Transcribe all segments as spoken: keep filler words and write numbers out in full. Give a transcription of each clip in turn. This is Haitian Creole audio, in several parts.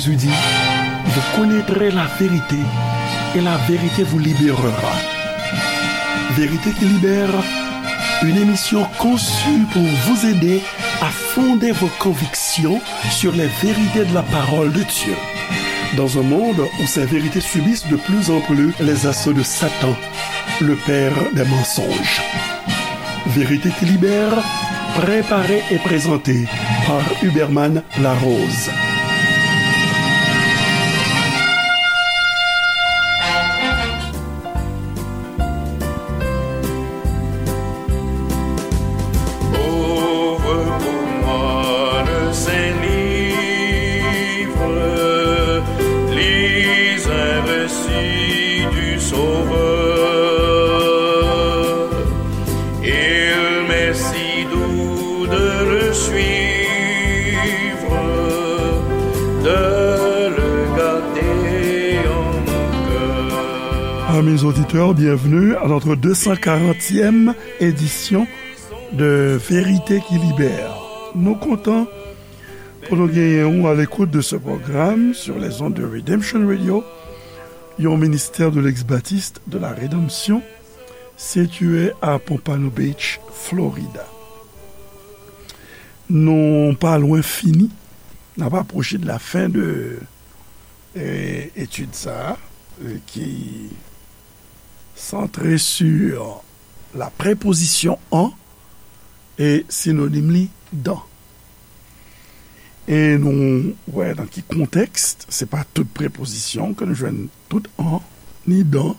Jésus dit, vous connaîtrez la vérité et la vérité vous libérera. Vérité qui libère, une émission conçue pour vous aider à fonder vos convictions sur les vérités de la parole de Dieu. Dans un monde où ces vérités subissent de plus en plus les assauts de Satan, le père des mensonges. Vérité qui libère, préparée et présentée par Huberman Larose. Ouvre pour moi le Saint-Livre, lis un récit du Sauveur. Il m'est si doux de le suivre, de le garder en mon cœur. Amis auditeurs, bienvenue à notre deux cent quarantième édition de Vérité qui Libère. Nou kontan pou nou genyen ou à l'écoute de ce programme sur les ondes de Redemption Radio, yon ministère de l'ex-baptiste de la rédemption, situé à Pompano Beach, Florida. Nou pa lwen fini, n ap apwoche de la fen de, eh, etid sa a, eh, ki santre sur la préposition en e sinonim li dans. E nou wè nan ki kontèks, se pa tout prepozisyon ke nou jwenn, tout en ni dans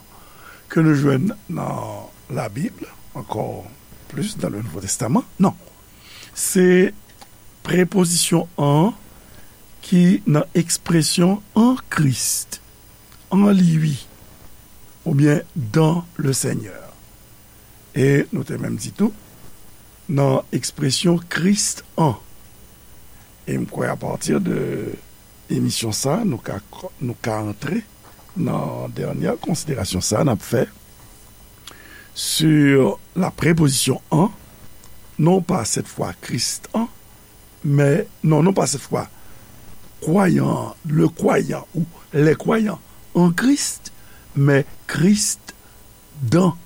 ke nou jwenn nan Labib, ankò plis dans le Nouveau Testament. Non. Se prepozisyon en ki nan ekspresyon en Christ, en lui, oubyen dans le Seigneur. E nou te menm di tou, nan ekspresyon Christ en. E m kwè apati de emisyon sa, nou ka, nou ka antre nan dènyè konsiderasyon sa n ap fè sur la préposition en, non pas cette fois Christ en, mais, non, non pas cette fois croyant, le croyant ou les croyants en Christ, mais Christ dans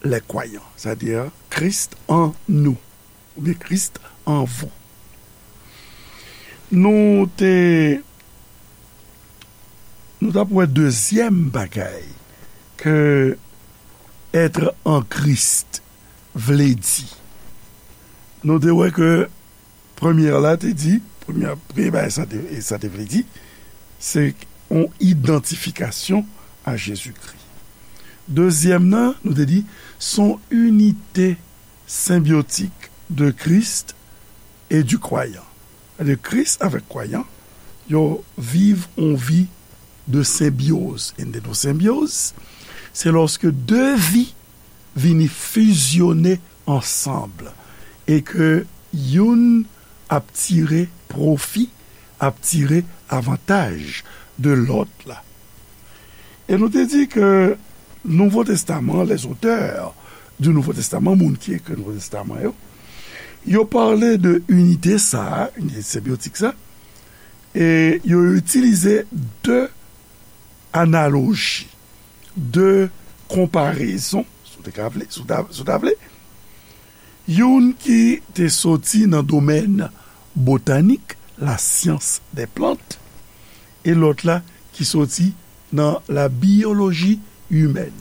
les croyants, c'est-à-dire Christ en nous, oubyen Christ en vous. Nou te, nou t ap wè dezyèm bagay ke être en Christ vle di. Nou te wè ke premyè la te di, premyè, premye bagay sa te, sa te vle di, se yon idantifikasyon a Jezikri. Dezyèm nan, nou te di, se yon inite senbyotik de Christ et du croyant. Sètadi Kris avèk kwayan, yo viv yon vi de senbyoz. E n te di w senbyoz, se lòske de vi vini fizyone ansanm e ke youn ap tire pwofi, ap tire avantaj de lòt la. E nou te di ke Nouvo Testaman, les auteurs du Nouveau Testament, moun ki ekri Nouvo Testaman yo, yo pale de inite sa a, inite senbyotik sa, e yo itilize de analoji, de konparezon, si w te ka vle, si w ta, si w ta vle, youn ki te soti nan domèn botanik, la science des plantes, e lòt la ki soti nan la bioloji imèn.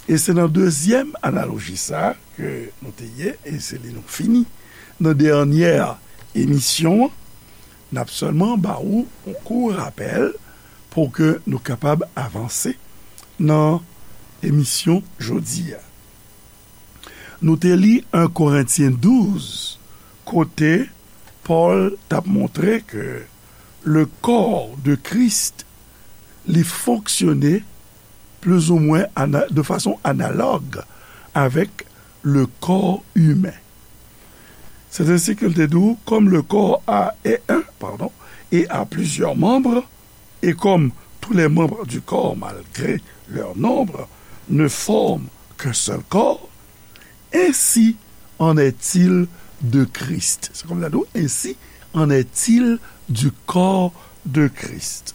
E se nan dezyèm analoji sa a ke nou te ye, e se li nou fini nan dènyè emisyon an. N ap sèlman ba ou yon kou rapèl pou ke nou kapab avanse nan emisyon jodi a. Nou te li en Korentyen douz, kote Pòl t ap montre ke le corps de Christ, li fonksyone plizoumwen ana-, de fason analòg avèk le corps humain. C'est ainsi qu'il te dit, comme le corps a, est un, pardon, et a plusieurs membres, et comme tous les membres du corps, malgré leur nombre, ne forment qu'un seul corps, ainsi en est-il de Christ. Se kòm sa di w, ainsi en est-il du corps de Christ.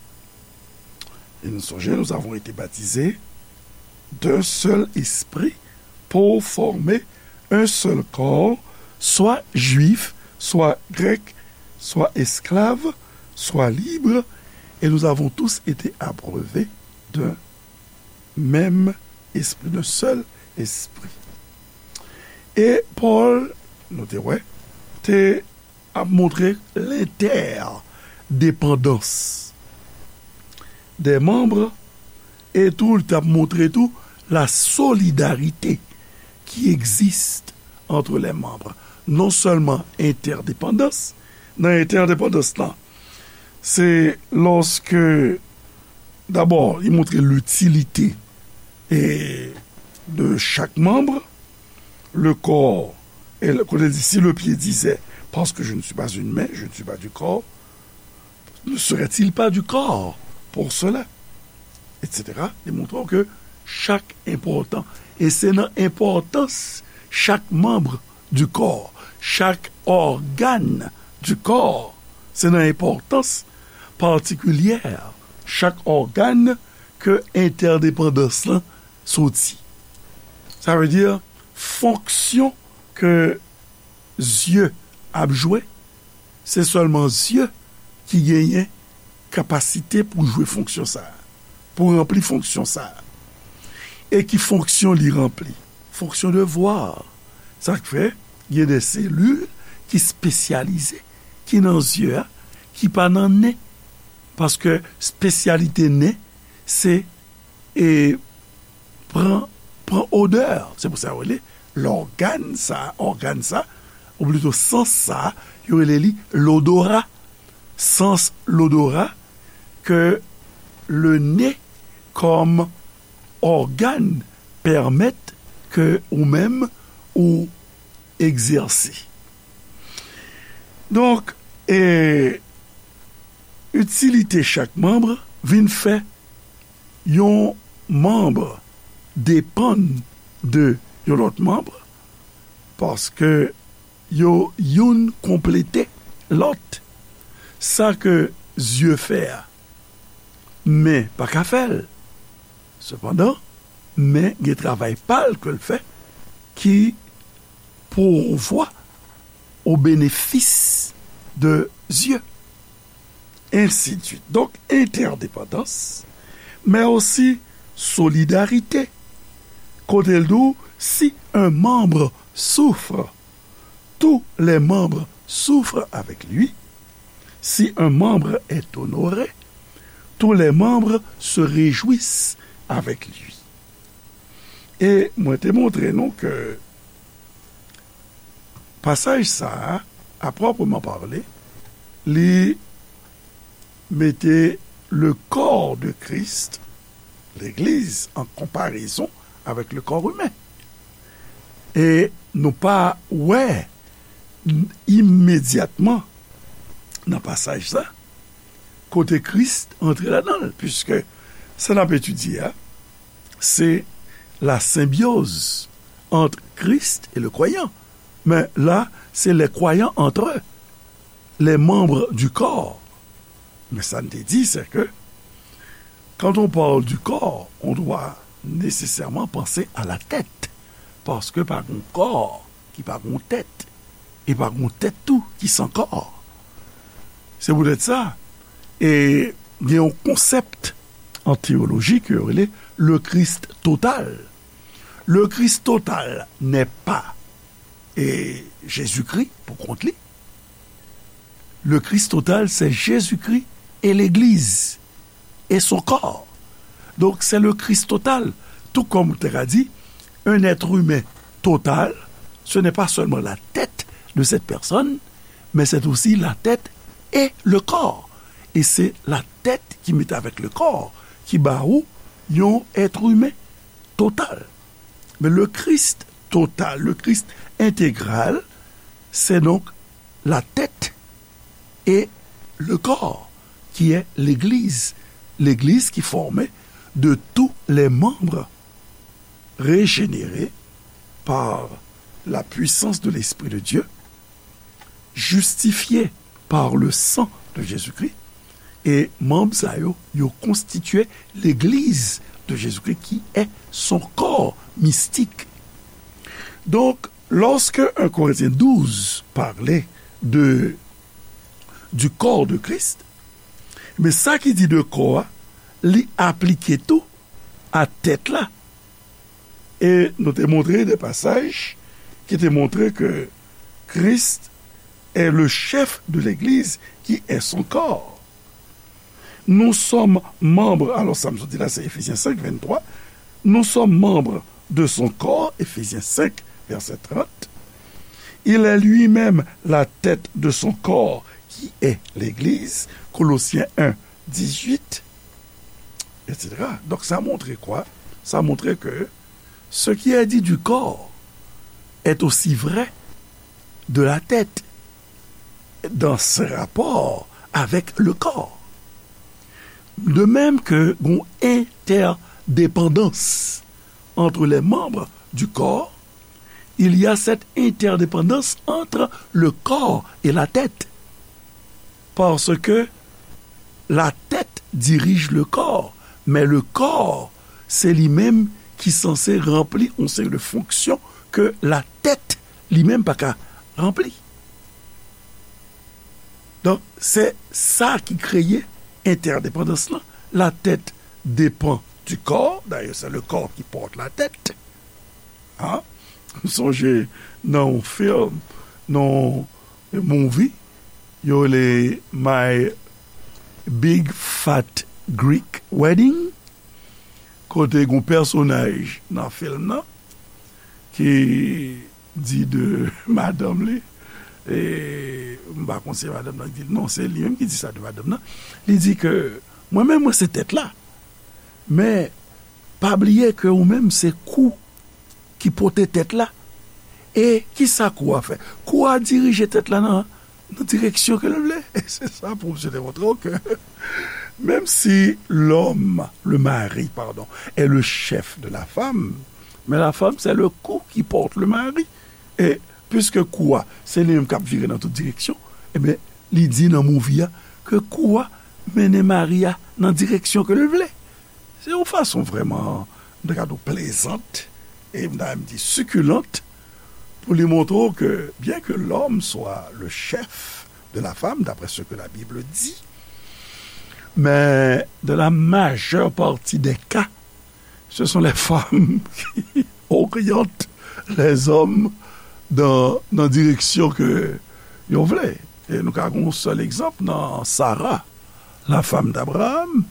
Et nous songeons, nous avons été baptisés d'un seul esprit pour former un seul corps, soit juif, soit grec, soit esclave, soit libre, et nous avons tous été abreuvés d'un même esprit, d'un seul esprit. E Pòl, nou te wè, te ap montre lentèdepandans dè manm, e tou, li t ap montre tou la solidarité qui existe entre les membres. Non sèlman entèdepandans, nan entèdepandans lan, se lòske, dabò, li montre litilite e de chak manm, le corps, e le- kote l di, si le pied disait, parce que je ne suis pas une main, je ne suis pas du corps, ne serait-il pas du corps pour cela? Et cetera. Li montre w ke chak enpòtan. E se nan enpòtans chak manm du corps, chak ògàn du corps, se nan enpòtans patikilyè chak ògàn ke entèdepandans lan soti. Sa vle di, fonksyon ke zye ap jwe, se sèlman zye ki genyen kapasite pou jwe fonksyon sa a, pou ranpli fonksyon sa a. E ki fonksyon li ranpli? Fonksyon de vwa. Sa k fè gen de selil ki espesyalize, ki nan zye a, ki pa nan nen. Paske espesyalite nen, se, e, pran, pran odè. Se pou sa yo rele lògàn sa, ògàn sa, ou plito sans sa, yo rele li lodora. Sans lodora ke le nez kòm ògàn pèmèt ke ou menm ou egzèse. Donk, e, itilite chak manm vin fè yon manm depann de yon lòt manm, paske yo youn konplete lòt. Sa ke zye fè a, men pa ka fè l. Sepandan, men gen travay pa l ke l fè ki pouvwa o benefis de zye. Ensidsuit. Donk, entèdepandans, men osi solidarite. Kote l di w, si un membre souffre, tous les membres souffrent avec lui. Si un membre est honoré, tous les membres se réjouissent avec lui. E mwen te montre nou ke pasaj sa a, à proprement parler, li mete le corps de Christ, legliz, an konparezon avèk le corps humain. E nou pa wè imedyatman nan pasaj sa kote Kris antre ladan l, puiske sa n ap etidye a, se la symbiose entre Christ et le croyant. Men la, se les croyants entre eux, les membres du corps. Men sa n te di, c'est que quand on parle du corps, on doit nécessairement penser à la tête. Paske pa gon kò ki pa gon tèt, e pa gon tèt tou ki san kò. Se poutèt sa, e gen yon konsèp an teyoloji ke yo rele le Christ total. Le Christ total n'est pas, e, Jezikri pou kont li. Le Christ total, c'est Jésus-Christ et l'Église et son corps. Donc, c'est le Christ total. Tout comme ou te ka di, un être humain total, ce n'est pas seulement la tête de cette personne, mais c'est aussi la tête et le corps. Et c'est la tête qui met avec le corps, qui ba ou yon être humain total. Men le Christ total, le Christ intégral, c'est donc la tête et le corps, qui est l'Église. L'Église qui est formée de tous les membres régénérés par la puissance de l'Esprit de Dieu, justifiés par le sang de Jésus-Christ, E manm sa yo, yo konstitye legliz de Jésus-Christ qui est son corps mystique. Donc, lorsque un Corinthiens douze parlait de, du corps de Christ, men sa ki di de kò a, li aplike tou a tèt la. E nou te montre de pasaj ki te montre ke Christ est le chef de l'église qui est son corps. Nous sommes membres, alors sa m sot di la, c'est Éphésiens cinq, vingt-trois. Nous sommes membres de son corps, Éphésiens cinq, verset trente. Il est lui-même la tête de son corps, qui est l'Église, Colossiens un, dix-huit, et cetera. Donc, ça montre quoi? Ça montre que ce qui est dit du corps est aussi vrai de la tête dans ses rapports avec le corps. De même que une interdépendance entre les membres du corps, il y a cette interdépendance entre le corps et la tête. Parce que la tête dirige le corps, mais le corps, c'est lui-même qui censé remplir une série de fonctions que la tête lui-même pas qu'à remplir. Donc, c'est ça qui crée interdépendance là. La tête dépend du corps. D'ailleurs, c'est le corps qui porte la tête. Hein? Sonje nan yon film, nan yon movie, yo rele My Big Fat Greek Wedding, kote gon pèsonaj nan film nan ki di de madanm li, e m pa konn se madanm nan ki di l, non, se li menm ki di sa de madanm nan. Li di ke mwen menm, mwen se tèt la, men pa bliye ke ou menm se kou ki pote tèt la. E kisa kou a fè? Kou a dirije tèt la nan, nan direksyon ke l vle. E se sa pwofesè te montre w ke menm si l'homme, le mari, pardon, est le chef de la femme, mais la femme, c'est le cou qui porte le mari. E piske kou a, se li menm k ap vire nan tout direksyon, ebyen, li di nan movie a ke kou a mennen mari a nan direksyon ke l vle. Se yon fason vrèman, m ta ka di w, plezant, e m ta menm di sikilant, pou li montre w ke, bien que l'homme soit le chef de la femme, d'après ce que la Bible dit, mais dans la majeure partie des cas, ce sont les femmes qui orientent les hommes dans, dans direction que yo vle. E nou ka gen yon sèl egzanp nan Sara, la femme d'Abraham.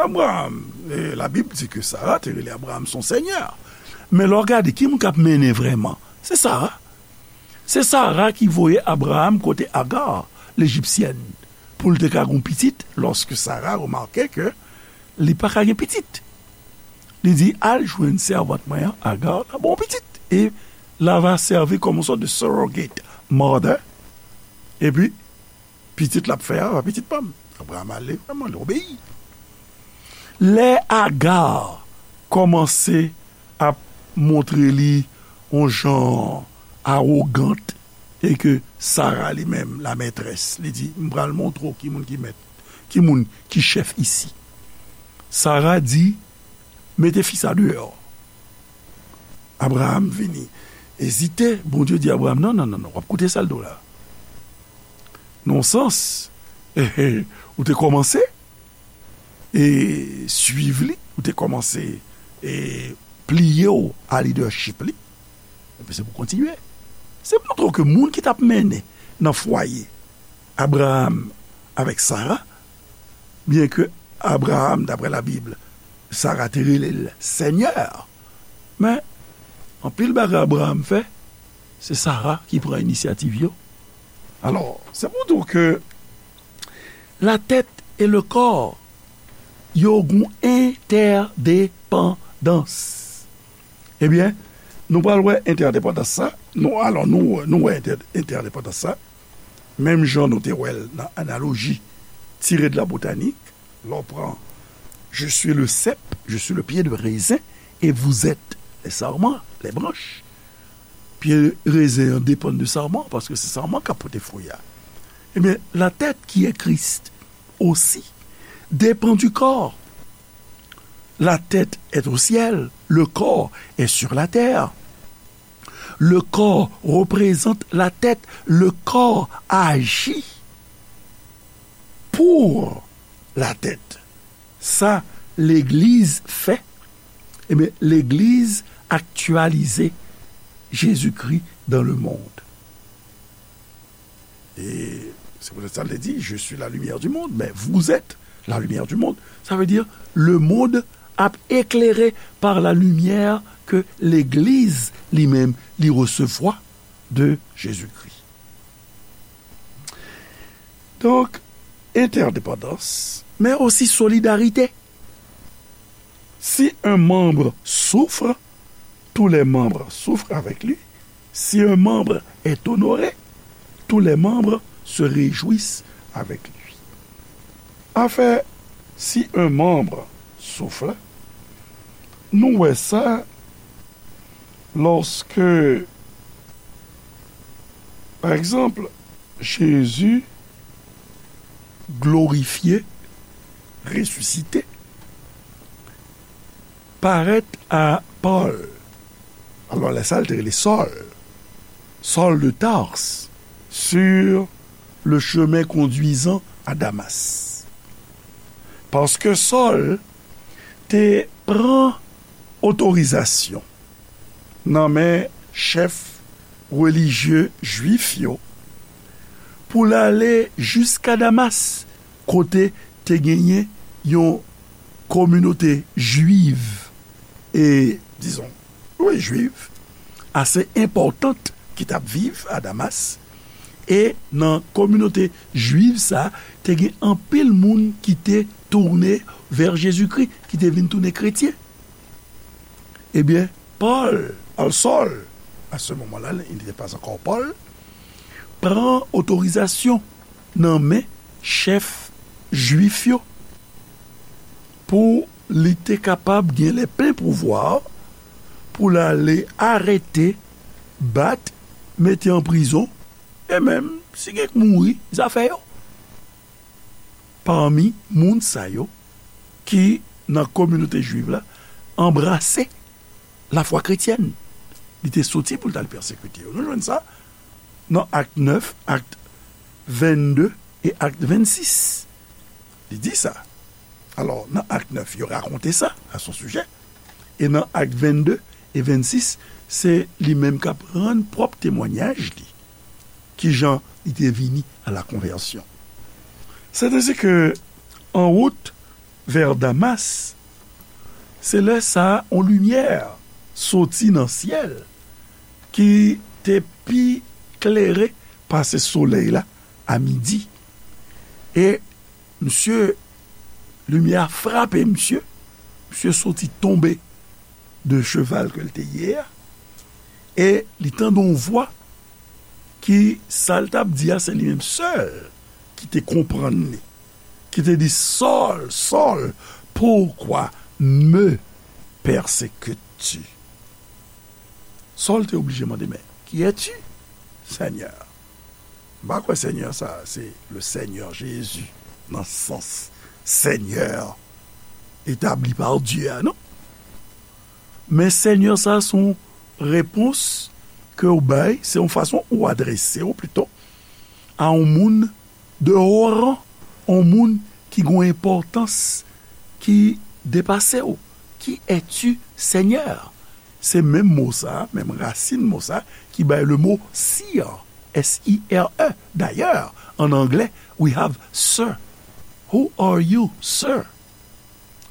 Abraham, e Labib di ke Sara te rele Abraham son seigneur. Men lè w gade, ki moun k ap mennen vrèman? Se Sara. Se Sara ki voye Abraham kote Agar, lejipsyèn, pou l te ka gen pitit, lòske Sara remake ke li pa ka gen pitit. Li di, al jwenn sèvant mwen an, Agar, la ba w pitit. E l ava sèvi kòm yon sòt de surrogate mother. Epi, pitit l ap fè a, pa pitit pa m. Abraham ale vrèman, li obeyi. Lè Agar kòmanse ap montre li yon jan awogant, e ke Sara li menm, la maîtresse, li di, m pral montre w ki moun ki mèt, ki moun ki chèf isi. Sara di, mete fi sa deyò. Abraham vini ezite, Bondye di Abraham, non, non, non, non, w ap koute sa l di w la. Nan yon sans, ou te kòmanse e swiv li, ou te kòmanse e pliye w a lidèchip li, epi se pou kontinye. Se montre w ke moun ki t ap mennen nan fwaye Abraham avèk Sara, byen ke Abraham, daprè Labib, Sara te rele l sènyè, men anpil bagay Abraham fè, se Sara ki pran inisyativ yo. Alò, se pou di w ke la tèt e le kò, yo gon entèdepandans. Ebyen, nou pral wè entèdepandans sa. Nou, alò, nou, nou wè entè-, entèdepandans sa. Menm jan nou te wè l nan analoji tire de la botanik, lè w pran, je suis le cep, je suis le pied de raisin, et vous êtes les sarments, les branches. Pye rezen an depann de sarman, paske se sarman k ap pote fwi a. Ebyen, la tête qui est Christ aussi, dépend du corps. La tête est au ciel, le corps est sur la terre. Le corps représente la tête, le corps agit pour la tête. Sa legliz fè, ebyen, legliz aktyalize Jezikri dans le monde. E se poutèt sa l te di, je suis la lumière du monde, men vous êtes la lumière du monde. Sa vle di, le monde ap eklere pa la limyè ke legliz li menm li resevwa de Jezikri. Donk, entèdepandans, men osi solidarite. Si un membre souffre, tous les membres souffrent avec lui. Si un membre est honoré, tous les membres se réjouissent avec lui. Afè, si un membre souffre, nou wè sa lòske, pa egzanp, Jezi glorifye, resisite, parèt a Pòl. Alò, lè sa, l te rele Sòl. Sòl de Tars, sur le chemin conduisant à Damas. Paske Sòl te pran otorizasyon nan men chèf relijye jwif yo pou l ale jiska Damas, kote te genyen yon kominote jwiv e, dizon, wi, jwiv, ase enpòtan ki t ap viv a Damas. E nan kominote jwiv sa a, te gen anpil moun ki te tounen vè Jezikri, ki te vin tounen kretyen. Ebyen, Pòl, al Sòl, à ce moment-là, il n'était pas encore Paul, pran otorizasyon nan men chèf jwif yo pou li te kapab gen le plen pouvwa pou l ale arete, bat, mete an prizon, e menm, si gen k mouri, zafè yo. Pami moun sa yo ki nan kominote jwiv la anbrase lafwa kretyèn. Li te soti pou l t al pèsekite yo. Nou jwenn sa nan Ak nèf, Ak vennde e Ak vennsis. Li di sa. Alò, nan Ak nèf, yo rakonte sa, à son sujet. E nan Ak vennde e vennsis, se li menm k ap rann pwòp temwanyaj li. Kijan li te vini à la conversion. C'est ainsi que, en route vers Damas, se lè sa a, yon limyè soti nan syèl ki te pi klere pase solèy la a midi. E misye, limyè a frape misye, misye soti tonbe de cheval ke l te ye a, e li tande yon vwa ki, sa l t ap di a, se li menm sèl ki te konprann li, ki te di, Sòl, Sòl, pourquoi me persécutes-tu? Sòl te oblije mande, men, qui es-tu, Seigneur? M pa kwè Senyè sa a se le Seigneur Jésus, nan sans Seigneur établi par Dieu a, non. Men Senyè sa a se yon repons ke w bay, se yon fason ou adrese w pito a yon moun de haut rang, yon moun ki gen yon enpòtans ki depase w. Qui es-tu, Seigneur? Se menm mo sa a, menm rasin mo sa a, ki bay le mo sir, S I R E. Dayè, an anglè, we have sir. Who are you, sir?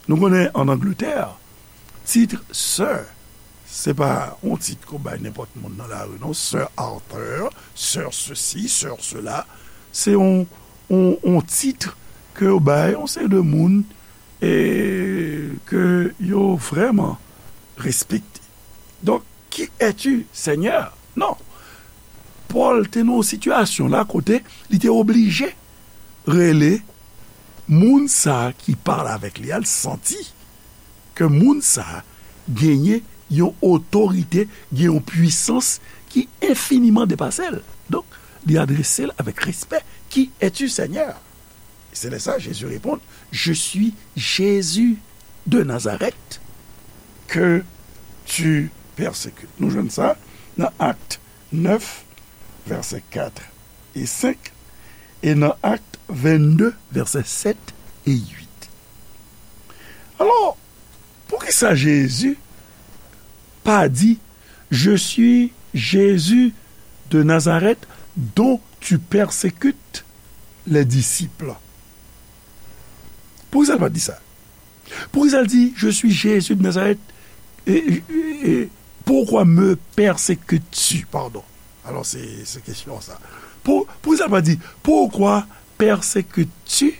Nou konnen an Angletè, tit sir, se pa yon tit ke w bay nenpòt moun nan lari, non. Sir Arthur, sir ceci, sir cela. Se yon, yon, yon tit ke yo bay yon seri de moun e ke yo vrèman respekte. Donk, qui es-tu, Seigneur? Non. Pòl te nan yon sitiyasyon la kote li te oblije rele moun sa a ki pale avèk li a, l santi ke moun sa a genyen yon otorite, gen yon pwisans ki enfiniman depase l. Donk, li adrese l avèk respè. Qui es-tu, Seigneur? Se lè sa, Jezi reponn, Je suis Jésus de Nazareth que tu persécutes. Nou jwenn sa nan Acte neuf, vèsè kat e senk, e nan Acte vingt-deux, vèsè sèt e uit. Alò, poukisa Jezi pa di, Je suis Jésus de Nazareth dont tu persécutes les disciples? Poukisa l pa di sa? Poukisa l di, Je suis Jésus de Nazareth, et, et, et pourquoi me persécutes-tu? Pardon. Alò, se, se kesyon sa. Pou, poukisa l pa di, Pourquoi persécutes-tu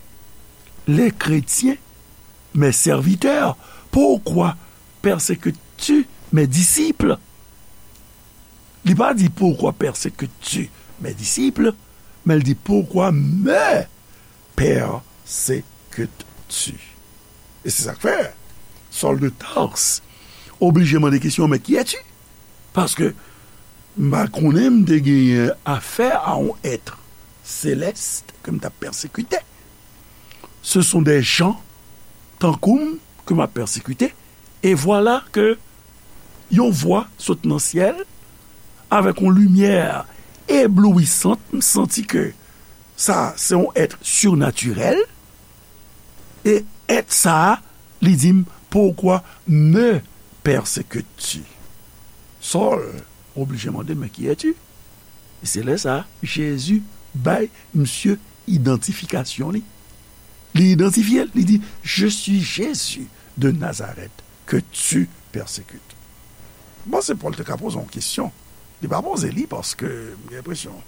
les chrétiens, mes serviteurs? Pourquoi persécutes-tu mes disciples? Li pa di, Pourquoi persécutes-tu mes disciples? Men l di, Pourquoi me persécutes-tu? E se sa k fè Sòl de Tars oblije mande kesyon, Mais qui es-tu? Paske m pa konnen m te genyen afè a yon èt selès ke m t ap pèsekite. Ce sont des gens tankou m ke m ap pèsekite. E vwala ke yon vwa sot nan syèl avèk yon limyè eblouisant. M santi ke sa se yon èt sirnatirèl. E èt sa a, li di m, Pourquoi me persécutes-tu? Sòl oblije mande, Mais qui es-tu? E se lè sa a, Jezi bay misye idantifikasyon li. Li idantifye l, li di, Je suis Jésus de Nazareth que tu persécutes. Bon, se Pòl te ka poze yon kesyon. Li pa poze li paske m gen enpresyon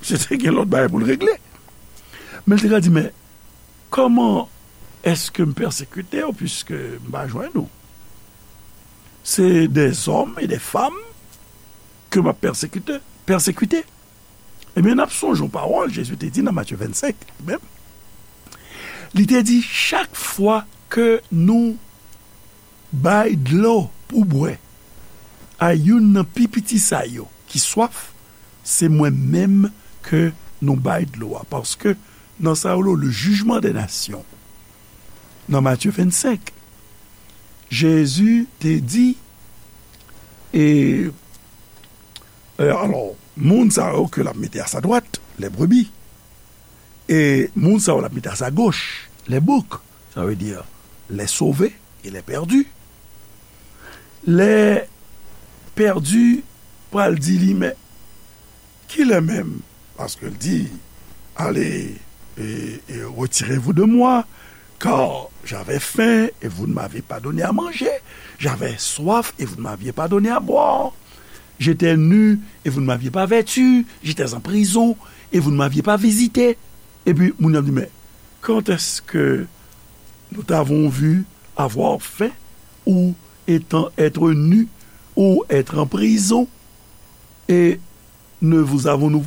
misye te gen lòt bagay pou l regle. Men l te ka di, Men kòman èske m pèsekite w, piske m pa jwenn ou? Se dèzòm e dèfanm ke m ap pèsekite, pèsekite. Ebyen, n ap sonje yon pawòl Jezi te di nan Matye vennsenk, li menm. Li te di, Chak fwa ke nou bay dlo pou bwè a youn nan pi piti sa yo ki swaf, se mwen menm ke nou bay dlo a. Paske nan sa yo le jugement des nations, nan Matye vennsenk, Jezi te di, e, e, alò, moun sa yo ke l ap mete a sa dwat, les brebis, e moun sa yo l ap mete a sa goch, les boucs, sa vle di les sauvés et les perdus. Les perdus pral di li, Men kilè menm? Paske l di, Allez, et, et retirez-vous de moi, car j'avais faim et vous ne m'avez pas donné à manger, j'avais soif et vous ne m'aviez pas donné à boire, j'étais nu et vous ne m'aviez pas vêtu, j'étais en prison et vous ne m'aviez pas visité. Epi moun yo ap di, Men quand est-ce que nous t'avons vu avoir faim ou étant être nu ou être en prison et ne vous avons-nous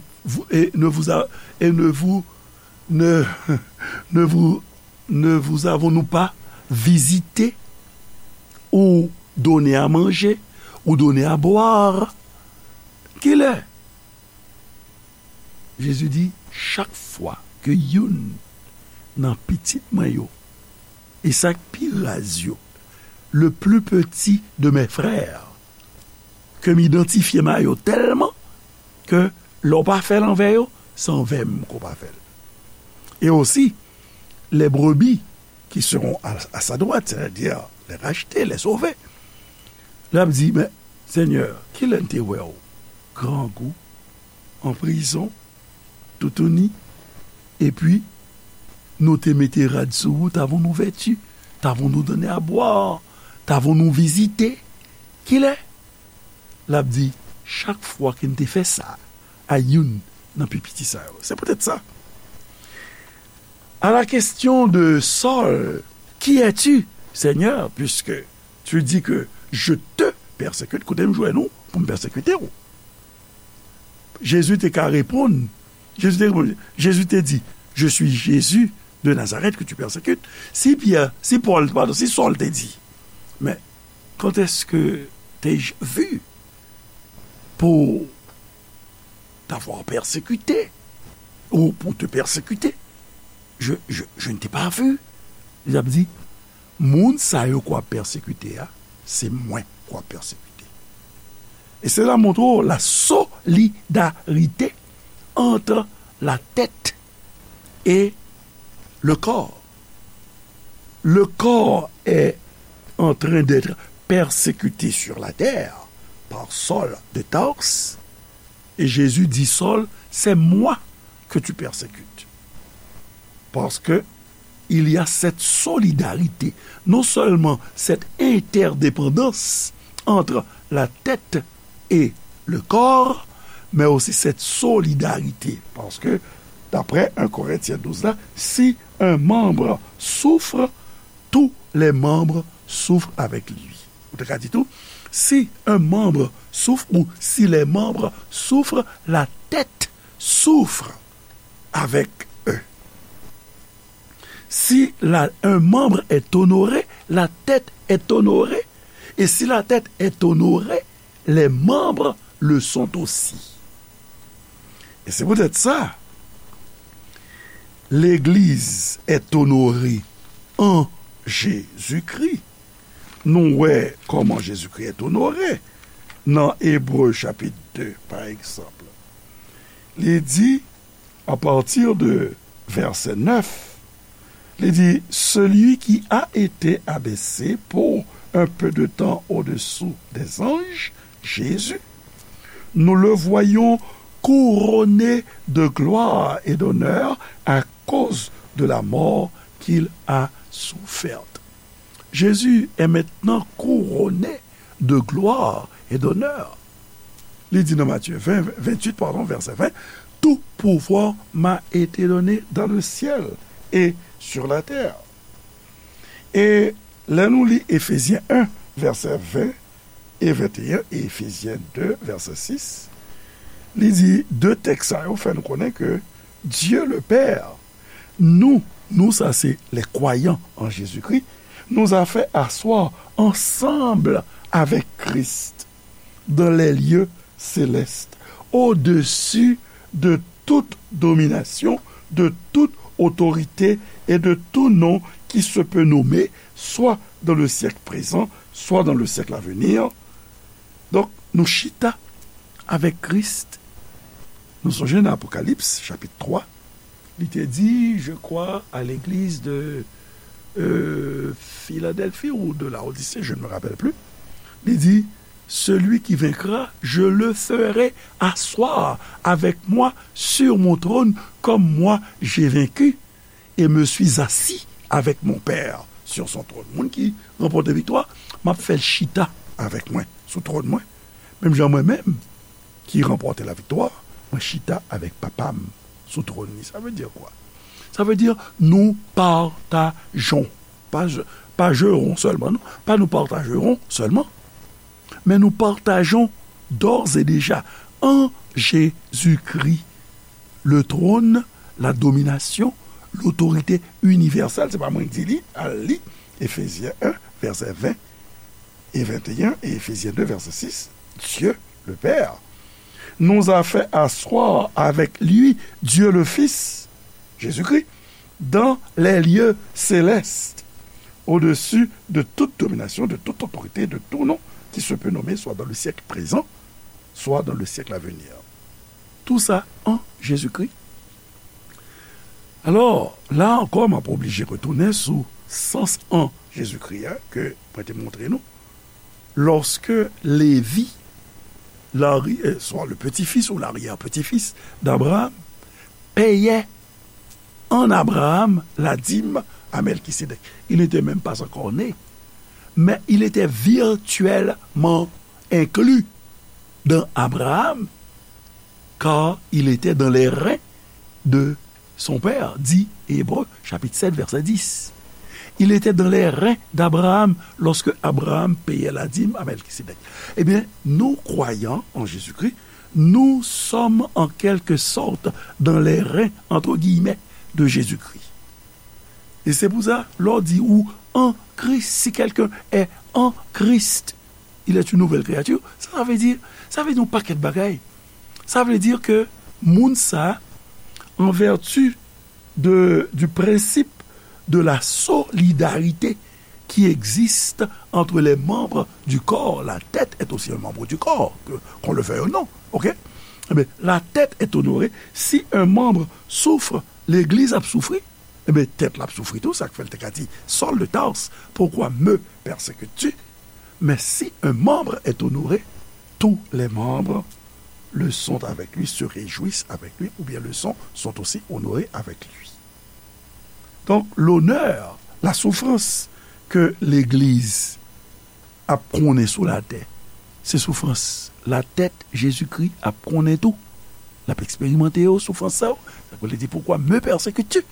et ne vous a- et ne vous ne ne vous ne vous avons-nous pas visité ou donné à manger ou donné à boire? Kilè? Jezi di, Chak fwa ke youn nan pitit mwen yo, e sa k pi raz yo, le plus petit de mes frères, ke m idantifye m a yo tèlman ke lè w pa fè l anvè yo, se anvè m ke w pa fè l. Et aussi, les brebis qui seront à, à sa droite, c'est-à-dire les rachetés, les sauvés. L ap di, Men, Senyè, kilè n te wè w grangou, an prizon, toutouni, epi nou te mete rad sou ou, t'avons-nous vêtu, t'avons-nous donné à boire, t'avons-nous visité? Kilè? L ap di, Chak fwa ke n te fè sa a youn nan pi piti sa yo. Se poutèt sa, à la question de Saul, Qui es-tu, Seigneur? Puisque tu dis que je te persécute, kote m jwenn ou pou m pèsekite w? Jezi te ka reponn, Jezi te reponn, Jezi te di, Je suis Jésus de Nazareth que tu persécutes. Si Pyè, si Pòl, padon, si Sòl te di, Men quand est-ce que t'ai-je vu pour t'avoir persécuté ou pour te persécuter? Je, je, je ne t'ai pas vu. Li ap di, moun sa yo k w ap pèsekite a, se mwen k w ap pèsekite. E se la montre w la solidarité entre la tête et le corps. Le corps est en train d'être persécuté sur la terre par Saul de Tarse. Et Jésus dit, Saul, c'est moi que tu persécutes. Parce que il y a cette solidarité, non seulement cette interdépendance entre la tête et le corps, mais aussi cette solidarité. Parce que, d'après un Corinthiens douze là, si un membre souffre, tous les membres souffrent avec lui. Ou te ka di tou, si un membre souffre ou si les membres souffrent, la tête souffre avec eux. Si la, un membre est honoré, la tête est honorée. Et si la tête est honorée, les membres le sont aussi. Et c'est peut-être ça. L'église est honorée en Jésus-Christ. Nou wè kòman Jezikri est honoré nan Ebre chapit de, pa egzanp. Li di, à partir de verset neuf, li di, celui qui a été abaissé pour un peu de temps au-dessous des anges, Jésus, nous le voyons couronné de gloire et d'honneur à cause de la mort qu'il a soufferte. Jésus est maintenant couronné de gloire et d'honneur. Li di nan Matye ven, venntuit, padon, vèsè ven, tout pouvoir m'a été donné dans le ciel et sur la terre. E lè nou li Efezyen en, vèsè ven e venteyen, e Efezyen de, vèsè sis, li di, de tèks sa yo fè nou konnen ke Dieu le Père, nous, nous sa se les croyants en Jésus-Christ, nous a fait asseoir ensemble avec Christ dans les lieux célestes, au-dessus de toute domination, de toute autorité et de tout nom qui se peut nommer, soit dans le siècle présent, soit dans le siècle à venir. Donk, nou chita avèk Kris. Nou sonje nan Apokalips, chapit twa, li te di, je crois, à l'église de euh, Philadelphie ou de Laodicée, je ne me rappelle plus. Li di, celui qui vaincra, je le ferai asseoir avec moi sur mon trône, comme moi j'ai vaincu, et me suis assis avec mon Père sur son trône. Moun ki ranpòte viktwa, m ap fè l chita avèk mwen sou twòn mwen. Menm jan mwen menm ki ranpòte laviktwa, mwen chita avèk Papa m sou twòn li. Sa vle di kwa? Sa vle di nou patajon. Pa, pa jeron sèlman, non. Pa nou patajeron sèlman, men nou patajon d'ores et déjà en Jésus-Christ le trône, la domination, l'autorité universelle. Se pa mwen ki di li, al li Efezyen en, vèsè ven e venteyen, e Efezyen de, vèsè sis. Dieu, le Père, nous a fait asseoir avec lui, Dieu le Fils, Jésus-Christ, dans les lieux célestes, au-dessus de toute domination, de toute autorité, de tout nom qui se peut nommer, soit dans le siècle présent, soit dans le siècle à venir. Tout ça en Jésus-Christ. Alò, la ankò, m ap oblije retounen sou sans an Jezikri a ke mwen te montre nou. Lorsque Lévi, l'ari-, euh, soit le petit-fils ou l'arrière-petit-fils d'Abraham, payait en Abraham la dîme à Melchisédek. Il n'était même pas encore né, mais il était virtuellement inclus dans Abraham, car il était dans les reins de son père, dit Hébreux, chapitre sept, verset dix. Il était dans les reins d'Abraham lorsque Abraham payait la dîme à Melchisédek. Eh bien, nous, croyants en Jésus-Christ, nous sommes en quelque sorte dans les reins, entre guillemets, de Jésus-Christ. E se pou sa, lè w di ou an Kris, si quelqu'un est en Christ, il est une nouvelle créature. Sa, sa vle di, sa vle di yon pakèt bagay. Sa vle di ke moun sa, an vèti de, du principe de la solidarité qui existe entre les membres du corps. La tête est aussi un membre du corps, que, qu'on le veuille ou non. OK? Eh bien, la tête est honorée. Si un membre souffre, l'église a souffri. Eh bien, tête la souffri tout, ça fait le Saul de Tarse. Pourquoi me persécutes-tu? Mais si un membre est honoré, tous les membres le sont avec lui, se réjouissent avec lui, ou bien le sont, sont aussi honorés avec lui. Donk, lonè, lasoufrans ke legliz ap konnen sou latè, se soufrans latèt Jezikri ap konnen tou. L ap eksperimante yo, soufrans sa yo. Sa vle di, pourquoi me persécutes-tu?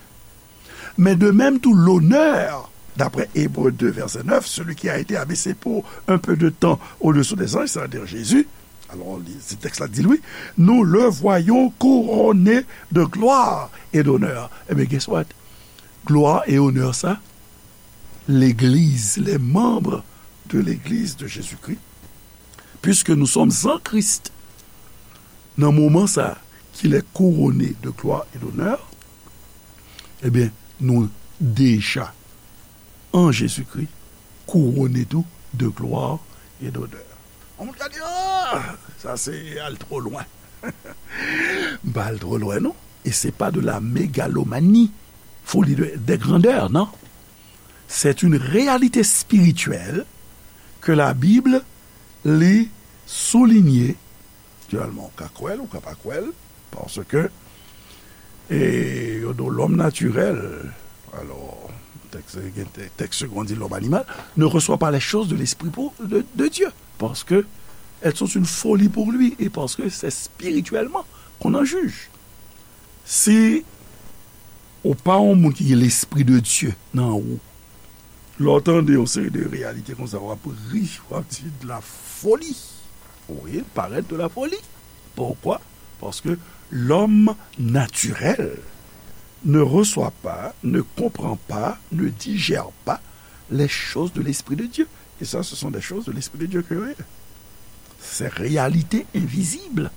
Mais de même tout l'honneur, d'après Hébreux deux, verset neuf, celui qui a été abaissé pour un peu de temps au-dessous des anges, c'est-à-dire Jésus, alors, se tèks la di l, wi, nous le voyons couronné de gloire et d'honneur. Eh bien, guess what? Glwa e onè sa, legliz, les membres de l'église de Jésus-Christ, puisque nous sommes en Christ, nan moman sa, qu'il est couronné de gloire et d'honneur, eh bien, nous déjà en Jésus-Christ, couronné tout de gloire et d'honneur. On moun ka di, ah, sa se al twò lwen. M pa al twò lwen, non. Et c'est pas de la mégalomanie, folie de, de grandeur, non. C'est une réalité spirituelle que la Bible li souligné. Naturèlman, ou ka kwè l, ou ka pa kwè l, paske, e, yo di w lòm natirèl, alò, tèks, gen tè-, tèks segon di lòm animal, ne reçoit pas les choses de l'esprit pour, de, de Dieu, parce que elles sont une folie pour lui, et parce que c'est spirituellement qu'on en juge. Si ou pa yon moun ki gen lespri de Dye nan ou, lè w tande yon seri de reyalite konsa, w ap ri, w ap di de la folie. Wi, parèt de la folie. Pourquoi? Parce que l'homme naturel ne reçoit pas, ne comprend pas, ne digère pas les choses de l'Esprit de Dieu. Et ça, ce sont des choses de l'Esprit de Dieu que yo ye. Ces réalités invisibles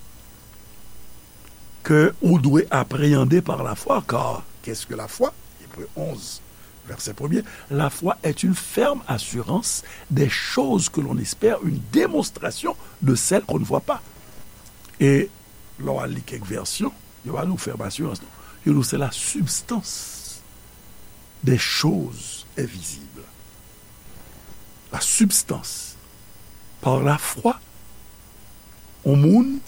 que ou dwe appréhender par la foi, car qu'est-ce que la foi? Hébreux onze, verset premier. La foi est une ferme assurance des choses que l'on espère, une démonstration de celles qu'on ne voit pas. E lè w al li kèk vèsyon, yo pa di w ferme assurance, non. Yo di w c'est la substance des choses invisibles. La substance. Par la foi, yon moun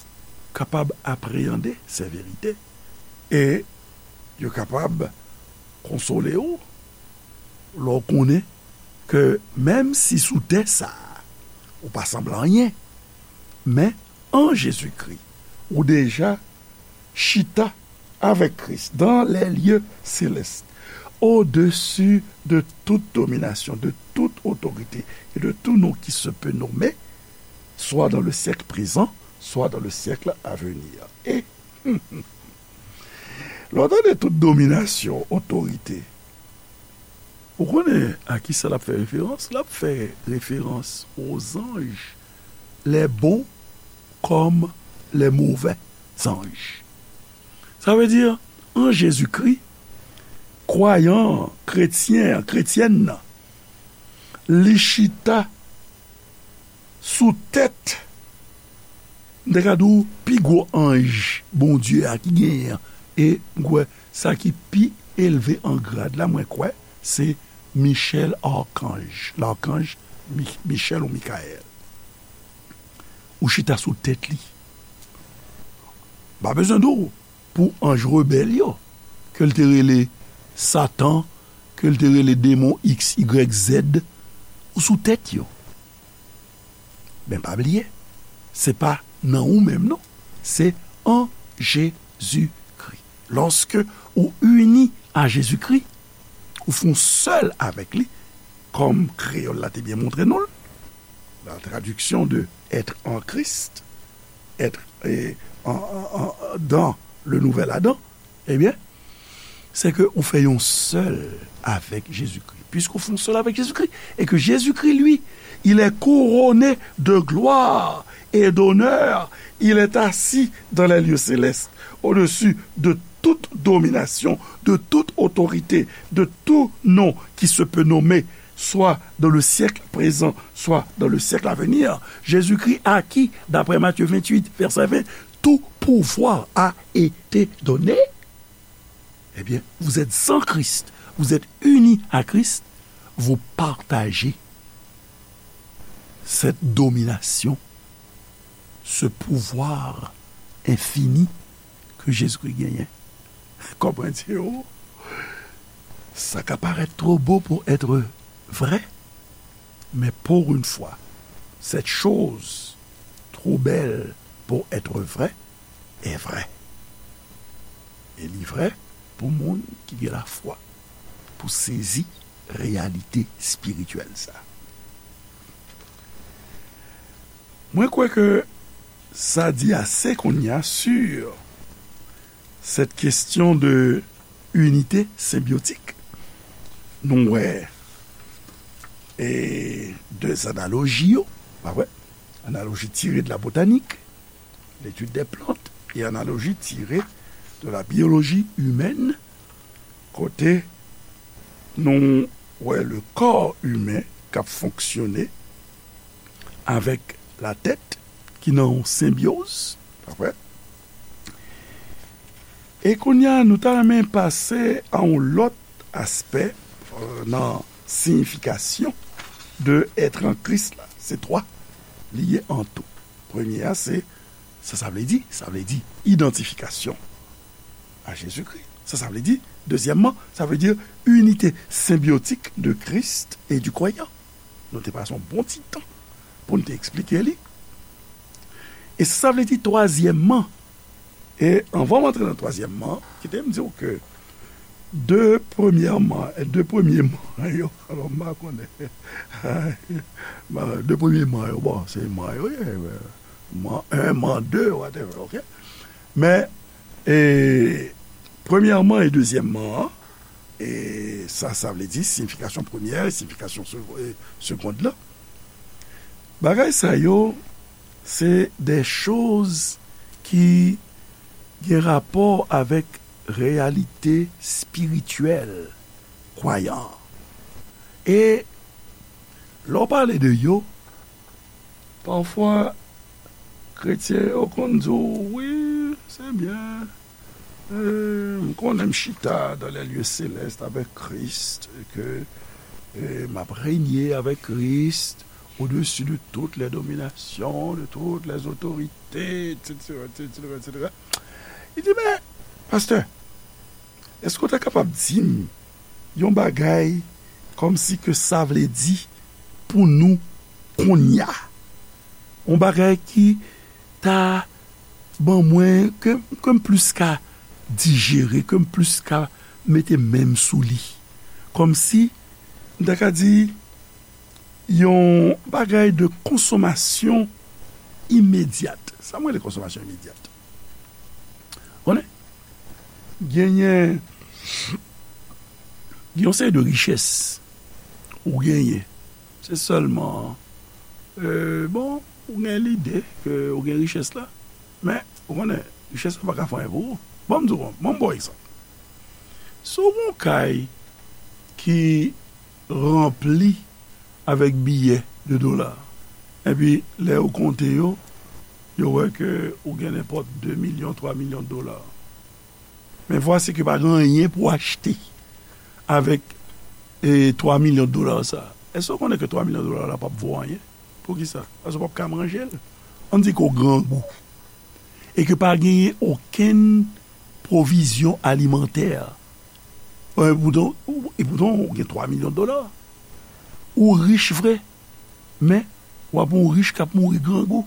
kapab apreyande se verite e yo kapab konsole w lè w konnen ke menm si sou tè sa a, ou pa sanble anyen, men an Jezikri, ou deja chita avec Christ dans les lieux célestes, au-dessus de toute domination, de toute autorité et de tout nom qui se peut nommer, soit dans le siècle présent, soit dans le siècle à venir. E lè w tande tout dominasyon, otorite, ou konnen a ki sa l ap fè referans? L ap fè referans aux anges, les bons comme les mauvais anges. Sa vle di, an Jezikri, kwayan an, kretyen an, kretyèn nan, li chita sou tèt, m te ka di w, pi gwo anj Bondye a ki genyen an. E m kwè sa ki pi elve an grad la, mwen kwè, se Michel Archange, Larkanj Mi-, Michel ou Mikayèl. Ou chita sou tèt li. Pa bezwen di w pou anj rebèl yo, ke l te rele Satan, ke l te rele demon X Y Z, ou sou tèt yo. Men pa bliye, se pa nan ou menm non, se an Jezikri. Lòske ou ini a Jezikri, ou fè yon sèl avèk li, kòm kreyòl la te byen montre nou l, la tradiksyon de être en Christ, être, eh, en, en, en, dans le nouvel Adam, ebyen, se ke ou fè yon sèl avèk Jezikri. Puisqu'on fait un seul avec Jésus-Christ, et que Jésus-Christ, lui, il est couronné de gloire et d'honneur, il est assis dans les lieux célestes, au-dessus de toute domination, de toute autorité, de tout nom qui se peut nommer, soit dans le siècle présent, soit dans le siècle à venir, Jésus-Christ à qui, d'après Matthieu vingt-huit, verset vingt, tout pouvoir a été donné, eh bien, vous êtes en Christ, vous êtes unis à Christ, vous partagez cette domination, ce pouvoir infini ke Jezikri genyen. Konprann, se, oh, sa ka parèt twò bo pou èt vrè, men pour une fois, cette chose trop belle pour être vraie est vraie. E li vrè pou moun ki gen lafwa, pou sezi reyalite espirityèl sa. Mwen kwè ke sa di ase kounye a sur cette question de unité symbiotique. Nou wè e de analoji yo, pa vre? Analoji tire de la botanik, l'étude des plantes, e analoji tire de la biologie humaine, kote nou wè le corps humain k ap fonksyone avèk la tèt ki nan yon senbyoz, pa vre? E kounye a, nou ta renmen pase a yon lòt aspè, euh, nan siyifikasyon de être en Christ la. Se twa li ye an tou. Premye a, se sa sa vle di. Sa vle di idantifikasyon a Jezikri. Sa sa vle di, dezyèmman, sa vle di inite senbyotik de Christ et du croyant. Nou te pase yon bon ti tan pou n te eksplike li. E sa sa vle di, twazyèmman, e anvan m antre nan twazyèmman, kite m di w ke de premyèman, de premye man yo, alò, m pa konnen. De premye man yo, bon, se man yo ye, man en, man de, whatever, ok? Men, e, premyèman e dezyèmman an, e sa, sa vle di siyifikasyon premyè, siyifikasyon se-, e, segond la. Bagay sa yo, se de choz ki gen rapò avèk reyalite espirityèl kwayan an. E lè w pale de yo, pafwa, kretyen yo konn di w, wi, se byen. E, m konnen m chita dans les lieux célestes avec Christ, et que, e, m ap renye avèk Kris au-dessus de toutes les dominations, de toutes les autorités, et cetera, et cetera, et cetera. Li di, men, pastè, èske w ta kapab di m yon bagay kòmsi ke sa vle di pou nou kounye a? Yon bagay ki ta ban mwen, ke, ke m plis ka dijere, ke m plis ka mete men m sou li. Kòmsi, m ta ka di, yon bagay de konsomasyon imedyat. Sa mwen rele konsomasyon imedyat? Konnen, genyen, gen yon seri de richès ou genyen. Se sèlman, e, bon, ou gen lide ke ou gen richès la, men, ou konnen, richès la pa ka fè anyen pou ou. Ban m di w, ban m ba w egzanp. Si w gen yon kay ki ranpli avèk biyè de dola, epi lè yo konte yo, yo wè ke ou gen nenpòt de milyon, twa milyon dola. Men vwasi ke pa gen anyen pou w achte avèk, e, twa milyon dola sa. Èske w konnen ke twa milyon dola la p ap vo anyen? Poukisa? Paske w p ap ka manje l. Ann di ke w grangou. E ke pa genyen okenn pwovizyon alimantè. E poutan, e poutan, ou gen twa milyon dola. Ou rich vre, men w ap yon rich k ap mouri grangou.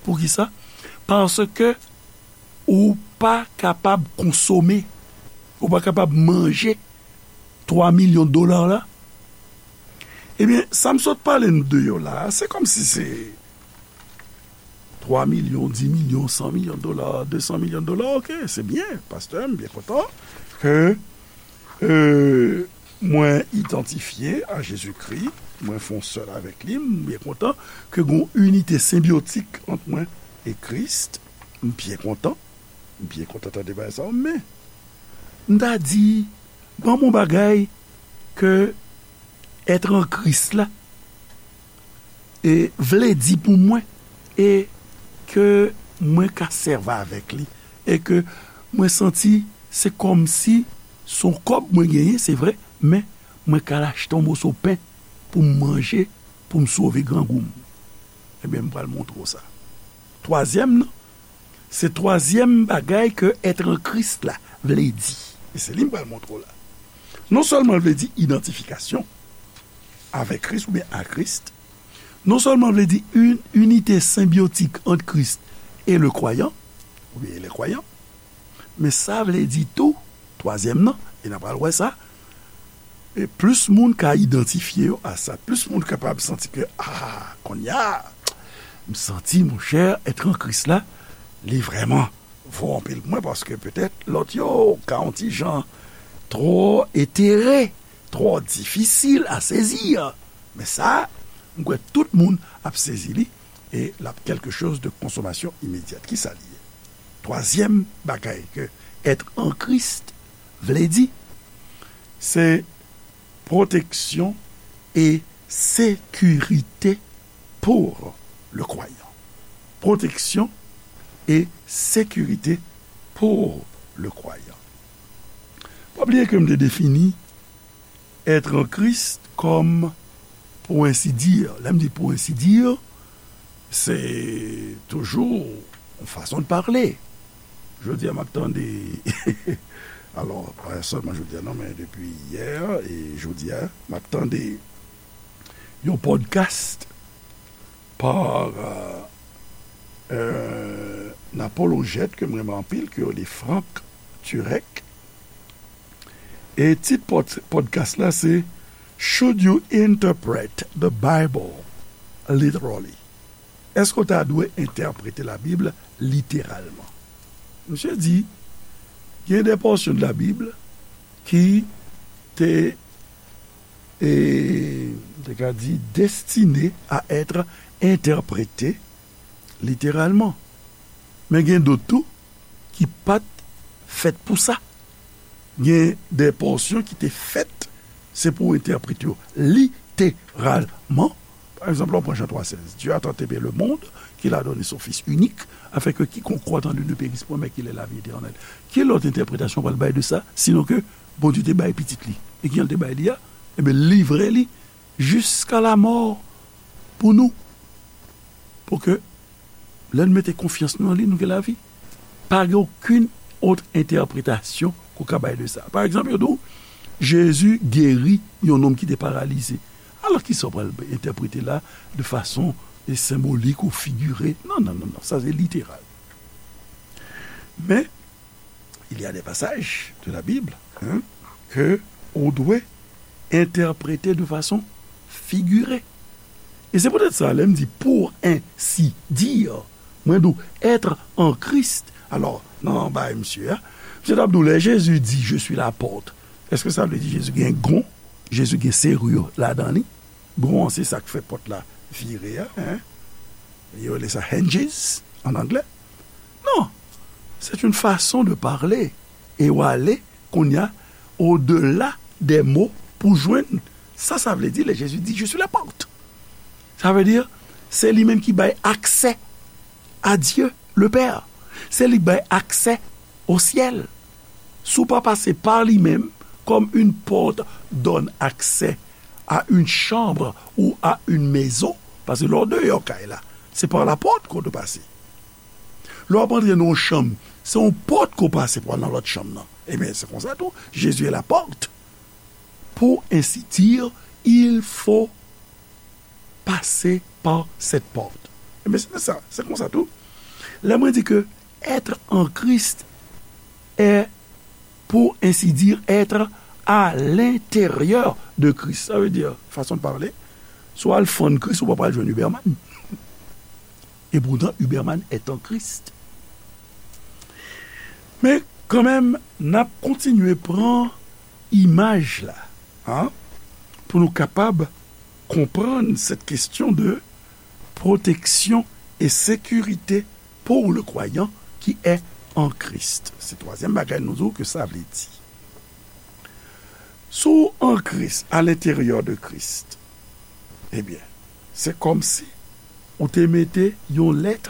Poukisa? Paske ou pa kapab konsome, ou pa kapab manje twa milyon dola la. Ebyen, sa m sot pale n de yo la a, se kòmsi se twa milyon, dis milyon, san milyon dola, de san milyon dola, ok, se byen, pastè, m byen kontan ke, e, mwen idantifye a Jezikri, mwen fè yon sèl avèk li, m byen kontan ke gen yon inite senbyotik ant mwen e Kris, m byen kontan, m byen kontan tande bagay sa yo, men M ta di, ban m yon bagay ke être en Christ la e vle di pou mwen, e ke mwen ka sèvi avèk li, e ke mwen santi se kòmsi se yon kòb mwen genyen, se vre, men mwen ka al achte yon moso pen pou m manje, pou m sove grangou m. Ebyen, m pral montre w sa. Twazyèm nan, se twazyèm bagay ke être en Christ la vle di. E se li m pral montre w la. Non sèlman l vle di idantifikasyon avèk Kris oubyen a Kris, non sèlman l vle di une unité symbiotique entre Christ et le croyant, oubyen les croyants, men sa vle di tou, twazyèm nan, e n a pral wè sa, e plis moun ka idantifye yo a sa, plis moun kapab santi ke, a, kounye a, m santi, monchè, être en Christ la, li vrèman vo anpil pou mwen, paske petèt lòt yo ka yon ti jan twò etere, twò difisil a sezi. Men sa, m kwè tout moun ap sezi li, e l ap quelque chose de consommation immédiate. Kisa li ye? Twazyèm bagay ke être en Christ vle di, se protection et sécurité pour le croyant. Protection et sécurité pour le croyant. Pa bliye ke m te defini être en Christ kòm, pour ainsi dire, lè m di pour ainsi dire, se toujou yon fason de pale. Jodi a, m ap tande, alò, pa sèlman jodi a, non, men depi yè e jodi a, m ap tande yon podcast pa, euh, euh, yon apolojèt ke m renmen anpil, ke yo rele Frank Turek. E tit pod-, podcast la se Should You Interpret the Bible Literally? Èske w ta dwe entèprete Labib literalman? Misye di, gen de pòsyon de Labib ki te, e, te ka di, destine a être entèprete literalman. Men gen dòt tou ki pa t fèt pou sa. Gen de pòsyon ki te fèt, se pou entèprete yo literalman. Pa egzanp, lè w pran Jan twa sèz, Dieu a tant aimé le monde qu'il a donné son Fils unique, afin que quiconque croit en lui ne périsse point, mais qu'il ait la vie éternelle. Ki lòt entèpretasyon w pral bay de sa, sinon ke Bondye te bay pitit li? E kijan l te bay li a? Ebyen, livre li jusqu'à la mort pou nou. Pou ke lè n mete konfyans nou nan li, nou gen lavi. Pa gen okenn lòt entèpretasyon ke w ka bay de sa. Pa egzanp, yo di w, Jezi geri yon nonm ki te paralize. Alò, kisa w pral entèprete la de fason, e, senbolik ou figire? Non, non, non, non, sa se literal. Men, il y a des passages de la Bible, hein, ke ou dwe entèprete de fason figire. E se poutèt sa, lè m di pour ainsi dire, mwen di w être en Christ. Alò, nan bagay misye a, misye t ap di w, lè Jezi di, je suis la porte, èske sa vle di Jezi gen gon, Jezi gen serire ladan li? Gon an, se sa k fè pòt la vire a, hein? Yo rele sa hinges an anglè. Non, c'est une façon de parler. E w ale, kounye a, au-delà des mots pou jwenn sa sa vle di lè Jezi di, je suis la porte. Sa vle di, se li menm ki bay aksè à Dieu le Père. Se li k bay aksè au ciel. Si w pa pase pa li menm, comme une porte donne accès à une chambre ou à une maison, paske lè w deyò kay la, se pa la pòt ke w dwe pase. Lè w ap antre nan yon chanm, se yon pòt ke w pase pou al nan lòt chanm nan. Ebyen, se konsa tou, Jésus est la porte. Pour ainsi dire, il faut passer par cette porte. Ebyen, se sa, se konsa tou. Lè mwen di ke être en Christ est, pour ainsi dire, être à l'intérieur de Christ. Sa vle di, fason de parler, si w al fann Kris, ou pa pral jwenn Huberman. Et pourtant, Huberman est en Christ. Men kanmenm, n ap kontinye pran imaj la, hein, pou nou kapab konprann cette question de protection et sécurité pour le croyant qui est en Christ. Se twazyèm bagay nou di w ke sa vle di. Si w an Kris, à l'intérieur de Christ, ebyen, se kòmsi ou te mete yon lèt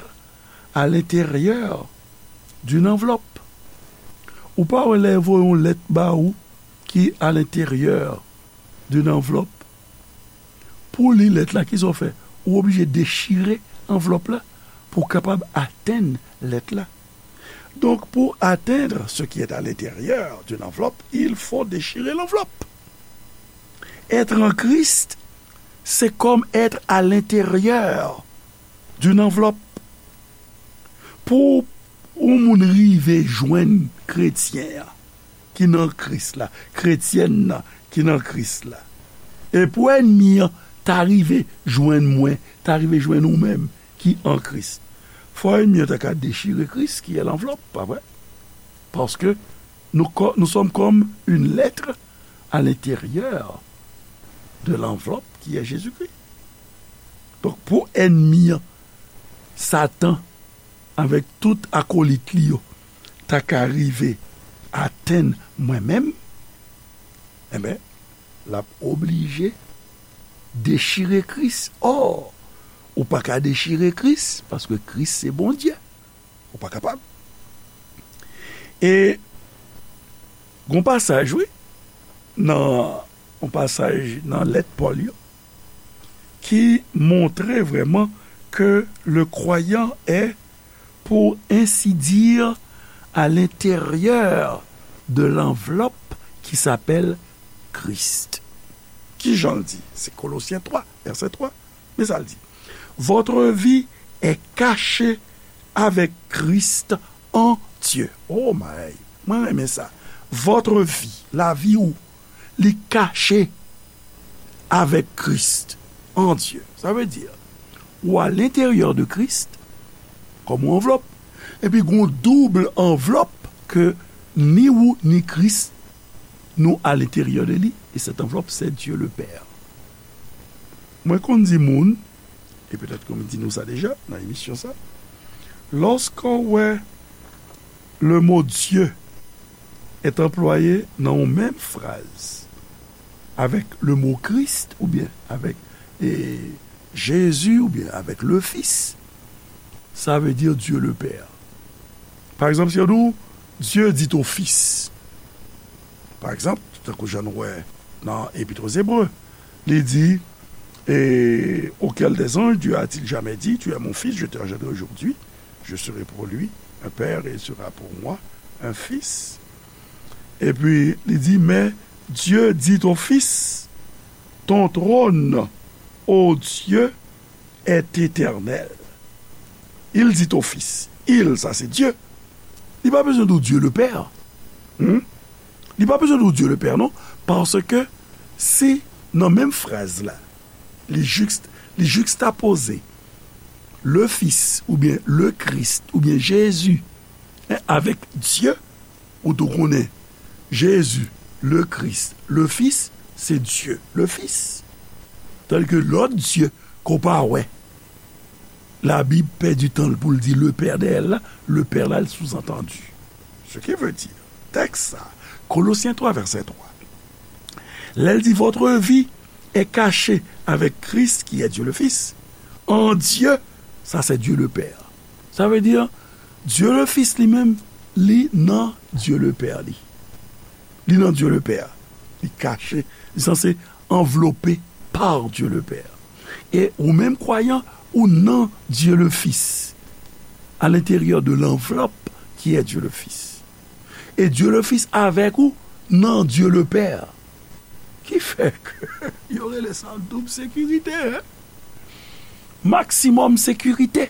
à l'intérieur d'une enveloppe. Ou pa wè lè yo voye yon lèt ba ou ki à l'intérieur d'une enveloppe? Pou w li lèt la, kisa w fè? Ou oblije dechire anvlòp la pou w kapab atenn lèt la. Donc, pour atteindre ce qui est à l'intérieur d'une enveloppe, il faut déchirer l'enveloppe. Être en Christ, c'est comme être à l'intérieur d'une enveloppe. Pou yon moun rive jwenn kretyen an ki nan Kris la, kretyèn nan ki nan Kris la, e pou ènmi an ta rive jwenn mwen, ta rive jwenn ou menm ki an Kris, fò ènmi an ta ka dechire Kris ki è lanvlòp, pa vre? Paske nou, nous sommes comme une lettre à l'intérieur de l'enveloppe qui est Jésus-Christ. Donk, pou ènmi an, Satan, avèk tout akolit li yo, ta ka rive atenn mwen menm, enben, l ap oblije dechire Kris. Ò, ou pa ka dechire Kris, paske Kris se Bondye. Ou pa kapab. E gon pasaj, wi, nan yon pasaj nan lèt Pòl yo, ki montre vrèman ke le croyant est, pour ainsi dire, à l'intérieur de l'enveloppe qui s'appelle Christ. Ki jan l di? Se Kolosyen twa, vèsè twa. Men sa l di: Votre vie est cachée avec Christ en Dieu. Oh my! Mwen renmen sa. Votre vie, lavi ou, li kache avec Christ en Dieu. Sa vle di, ou à l'intérieur de Christ, kòm yon anvlòp. Epi gon doub anvlòp ke ni ou ni Kris, nou à l'intérieur de li, et cette enveloppe, c'est Dieu le Père. Mwen konn di moun, e petèt ke m di nou sa deja nan emisyon sa, lòske w wè le mot Dieu est employé nan yon menm fraz avèk le mot Christ, oubyen avèk, e, Jésus, oubyen avèk le Fils, sa vle di Dieu le Père. Pa egzanp, si yo di w, Dieu dit au Fils. Pa egzanp, tankou jan nou wè nan Epit aux Hébreux, li di, et auquel des anges Dieu a-t-il jamais dit, tu es mon fils, je t'ai engendré aujourd'hui, je serai pour lui un père et il sera pour moi un fils. Epi, li di, mais Dieu dit au Fils, ton trône, ô Dieu, est éternel. Il dit au Fils. Il, sa se Dye. Li pa bezwen di w Dieu le Père. Hmm? Li pa bezwen di w Dieu le Père, non. Paske se nan menm fraz la, li jikst-, li jikstapoze le Fils, oubyen le Christ, oubyen Jezi, en, avèk Dye, ou tou konnen Jezi, le Christ, le Fils, se Dye, le Fils. Tandis ke lòt Dye ke w pa wè, Labib pèdi tan l pou l di le Père dèyè l la, le Père la, l souzantandi. Ce qui veut dire, tèks sa, Kolosyen twa, vèsè twa, lè l di, votre vie est cachée avec Christ, qui est Dieu le Fils, en Dieu, sa se Dieu le Père. Sa vle di, Dieu le Fils li menm, li nan Dieu le Père li. Li nan Dieu le Père. Li kache, li sanse anvlope par Dieu le Père. E ou menm kwayan, ou nan Dieu le Fils, à l'intérieur de l'enveloppe qui est Dieu le Fils. E Dieu le Fils avèk ou nan Dieu le Père. Ki fè ke yo rele sa doub sekirite, en? Maksimòm sekirite.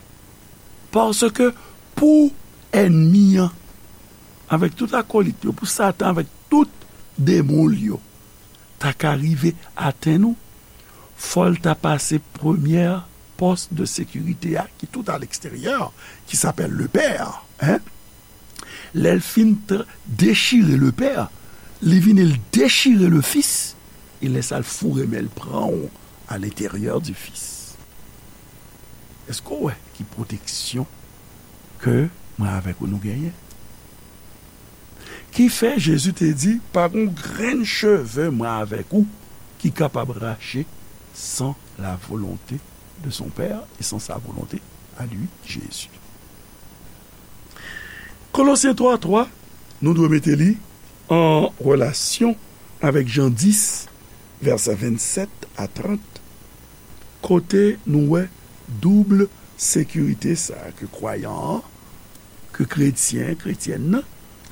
Paske pou ènmi an, avèk tout akolit yo, pou Satan avèk tout demon l yo, ta ka rive atenn ou, fò l ta pase premyè pòs de sekirite a, ki tout à l'extérieur, qui s'appelle le Père, en. Lè l fin tra-, dechire le Père, li vini l dechire le Fils, e lè sa l foure men l pran w à l'intérieur du Fils. Èske w wè ki pwoteksyon ke mwen avèk ou nou genyen? Ki fè Jezi te di, pa gon grenn cheve mwen avèk ou ki kapab rache sans la volonté de son Père et sans sa volonté à lui, Jésus. Kolosyen twa twa, nou dwe mete li an relasyon avèk Jan dis, vèsè vennsèt a trant, kote nou wè doub sekirite sa a ke kwayan an, ke kretyen, kretyèn nan,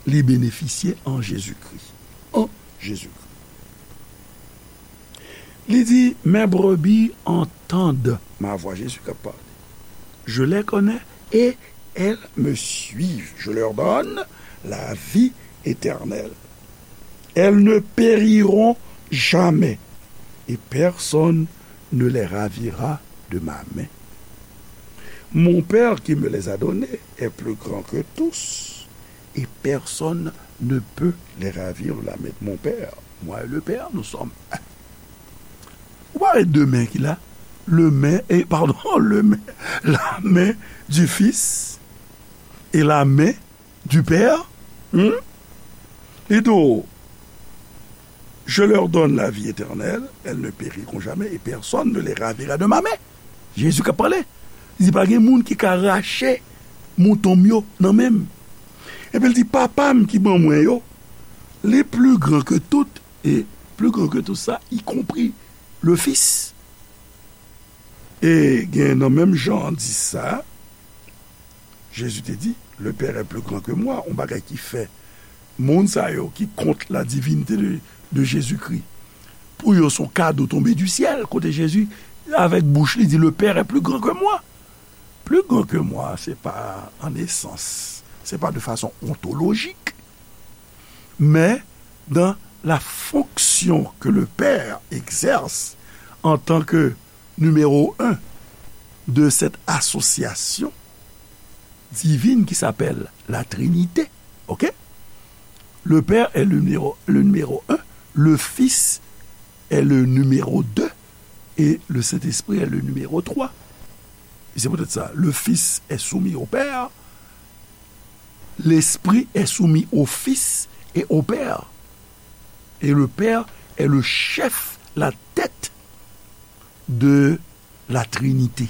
li benefisye an Jezikri. An Jezikri. Li di, mes brebis entendent ma voix. Jezi k ap pale. Je les connais et elles me suivent. Je leur donne la vie éternelle. Elles ne périront jamais et personne ne les ravira de ma main. Mon Père qui me les a donnés est plus grand que tous et personne ne peut les ravir de la main de mon Père. Moi et le Père, nous sommes un. Ou pa wè de men ki la? Le men, e, padon, le men, la men du Fils et la men du Père. Hmm? Li di w, je leur donne la vie éternelle, elles ne périront jamais et personne ne les ravira de ma main. Jezi k ap pale. Li di, pa gen moun ki ka rache mouton m yo nan men m. Epi l di, papa m ki ban mwen yo, li pli gran ke tout, e pli gran ke tout sa, y compris le Fils. E gen nan menm Jan dis sa, Jezi te di, le Père est plus grand que moi, yon bagay ki fè moun sa yo ki kont la divinité de, de Jésus-Christ, pou yo se yon kado tonbe du ciel, kote Jezi, avèk bouch li, di, le Père est plus grand que moi. Plus grand que moi, se pa an esans, se pa de fason ontolojik, men dans la fonction que le Père exerce en tant que numéro un de cette association divine qui s'appelle la Trinité. OK? Le Père est le numéro, le numéro un, le Fils est le numéro deux et le Saint-Esprit est le numéro trois. Et c'est peut-être ça. Le Fils est soumis au Père, l'Esprit est soumis au Fils et au Père. Et le Père est le chef, la tête de la Trinité.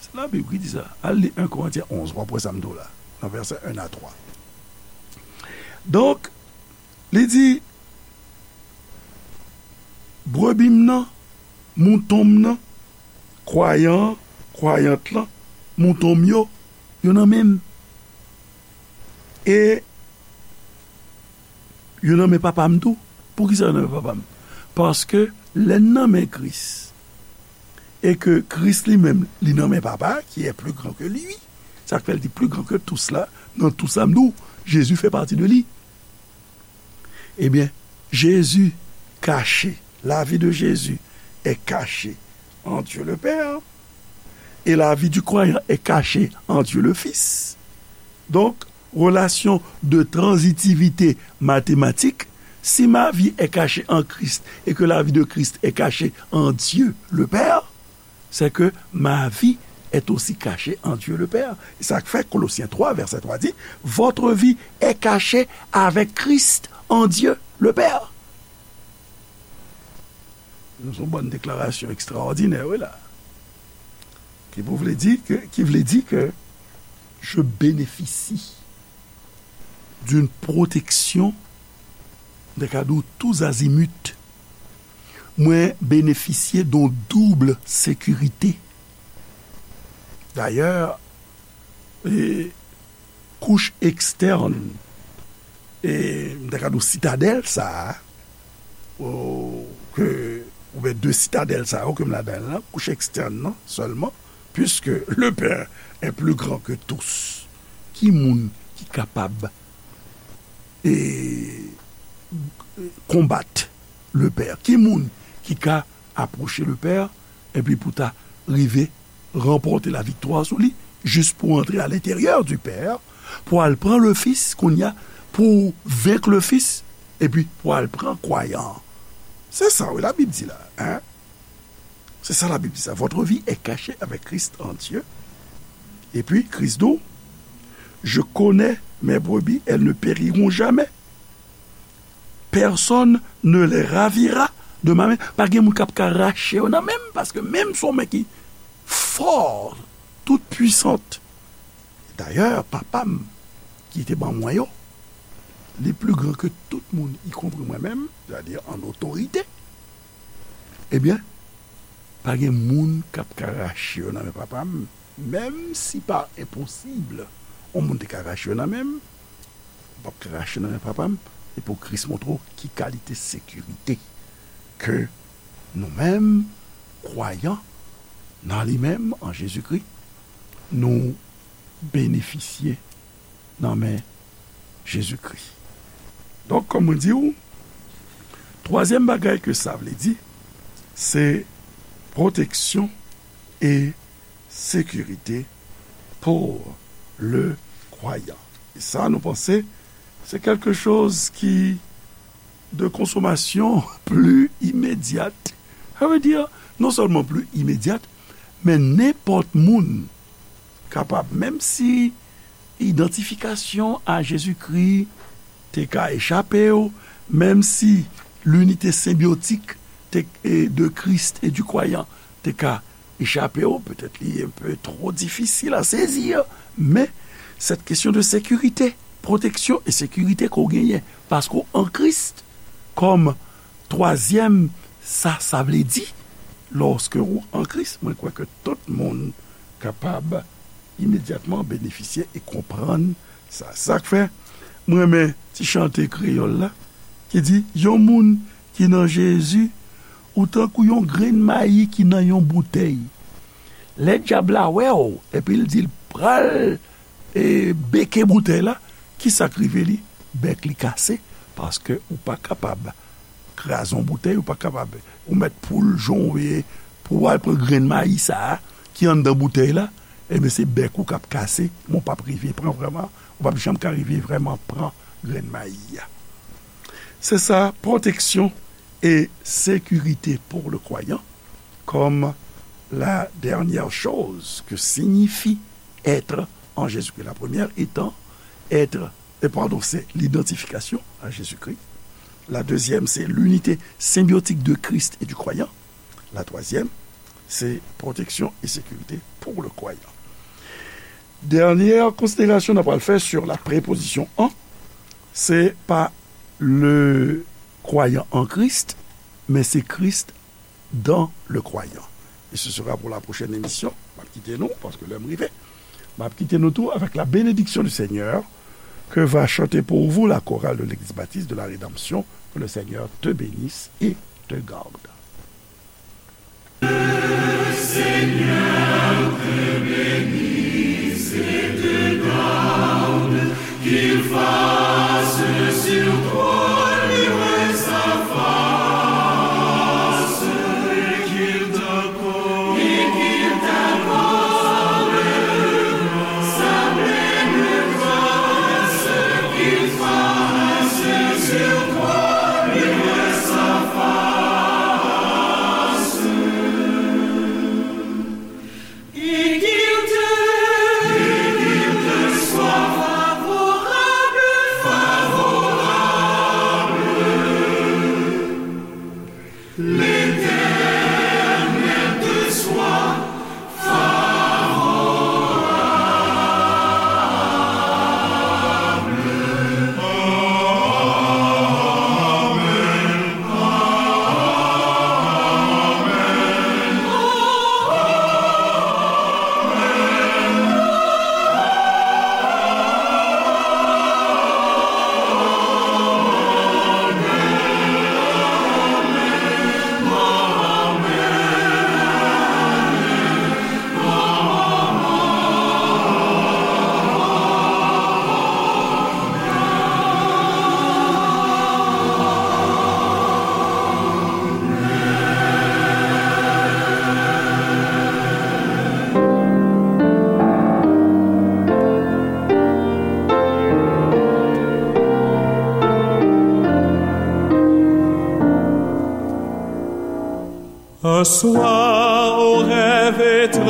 Se Labib ki di sa. Al li en Korentyen onz, w ap wè sa m di w la, nan vèsè en a twa. Donk, li di, brebi m nan, mouton m nan, kwayan an, kwayant lan, mouton m yo, yo nan men m. E yo nan men Papa m tou. Poukisa yo nan men Papa m? Paske lè n nan men Kris, e ke Kris li menm, li nan men Papa, qui est plus grand que lui, sa k fè l di plus grand que tous la, nan tout sa m di w, Jezi fè pati de li. Ebyen, Jezi kache, la vie de Jésus est cachée en Dieu le Père, et la vie du croyant est cachée en Dieu le Fils. Donc, relation de transitivité mathématique, si ma vie est cachée en Christ et que la vie de Christ est cachée en Dieu le Père, c'est que ma vie est aussi cachée en Dieu le Père. E sa k fè Kolosyen twa, vèsè twa di, votre vie est cachée avec Christ en Dieu le Père. Se yon bann deklarasyon ekstraòdinè, wi la. Ki pou vle di ke, ki vle di ke je bénéficie d'une protection, m ta ka di w, tous azimuts. Mwen benefisye de yon doub sekirite. Dayè, e, kouch ekstèn, e, m ta ka di w sitadèl sa a, o, ke, oubyen de sitadèl sa yo ke m ladan l lan, kouch ekstèn nan sèlman, puisque le Père est plus grand que tous. Ki moun ki kapab, e, konbat le Père? Ki moun ki ka apwoche le Père epi pou ta rive ranpòte laviktwa sou li, jis pou antre à l'intérieur du Père, pou al pran le Fils, kounye a, pou venk le Fils, epi pou al pran kwayan an. Se sa, wi, Labib di la, hein? Se sa Labib di sa. Votre vie est cachée avec Christ en Dieu. Epi, Kris di w, je connais mes brebis, elles ne périront jamais. Personne ne les ravira de ma main. Pa gen moun k ap ka rache yo nan men m, paske men m se yon men ki fò, tout puissante. Dayè, Papa m ki te ban mwen yo, li pli gran ke tout moun, ikonpri mwen menm, sètadi an otorite. Ebyen, pa gen moun k ap ka rache yo nan men Papa m, menm si pa enposib, yon moun te ka rache yo nan men m, ou p ap ka rache nan men Papa m, e pou Kris montre w ki kalite sekirite ke nou menm, kwayan nan li menm, an Jezikri, nou benefisye nan men Jezikri. Donk, kòm mwen di w, twazyèm bagay ke sa vle di, se pwoteksyon e sekirite pour le croyant. E sa, nou panse, se quelque chose ki de consommation plus immédiate. Sa vle di, non sèlman pli imedyat, men nenpòt moun kapab, menm si idantifikasyon a Jezikri te ka echape w, menm si linite senbyotik te, e, de Christ et du croyant te ka echape w, petèt li enpe two difisil a sezi, men cette question de sécurité, pwoteksyon e sekirite ke w genyen, paske w an Kris, kòm twazyèm, sa, sa vle di, lòske ou an Kris, mwen kwè ke tout moun kapab imedyatman benefisye e konprann sa. Sa k fè mwen renmen ti chante kreyòl la, ki di, yon moun ki nan Jezi, ou tankou yon grenn mayi ki nan yon boutèy. Lè dyab la wè w, epi l di l pral, e, beke boutèy la, ki sa k rive li? Bèk li kase, paske ou pa kapab kraze yon boutèy, ou pa kapab, ou mèt poul jan w ye, pou w al pran grenn mayi sa a, ki anndan boutèy la, ebyen, se bèk ou k ap kase, men w p ap rive pran vrèman, ou p ap janm ka rive vrèman pran grenn mayi a. Se sa, pwoteksyon e sekirite pour le croyant, comme la dernière chose que signifie être en Jésus-Christ. La première étant être, et pardon, c'est l'identification à Jésus-Christ. La deuxième, c'est l'unité symbiotique de Christ et du croyant. La troisième, c'est protection et sécurité pour le croyant. Dènyè konsiderasyon n ap pral fè sur la préposition en, se pa le croyant en Christ, men se Christ dans le croyant. Et ce sera pour la prochaine émission. M ap kite nou, paske lè m rive. M ap kite nou tou avec la bénédiction du Seigneur que va chanter pour vous la chorale de l'Église baptiste de la Rédemption. Que le Seigneur te bénisse et te garde. Un soir, au rêve étrange,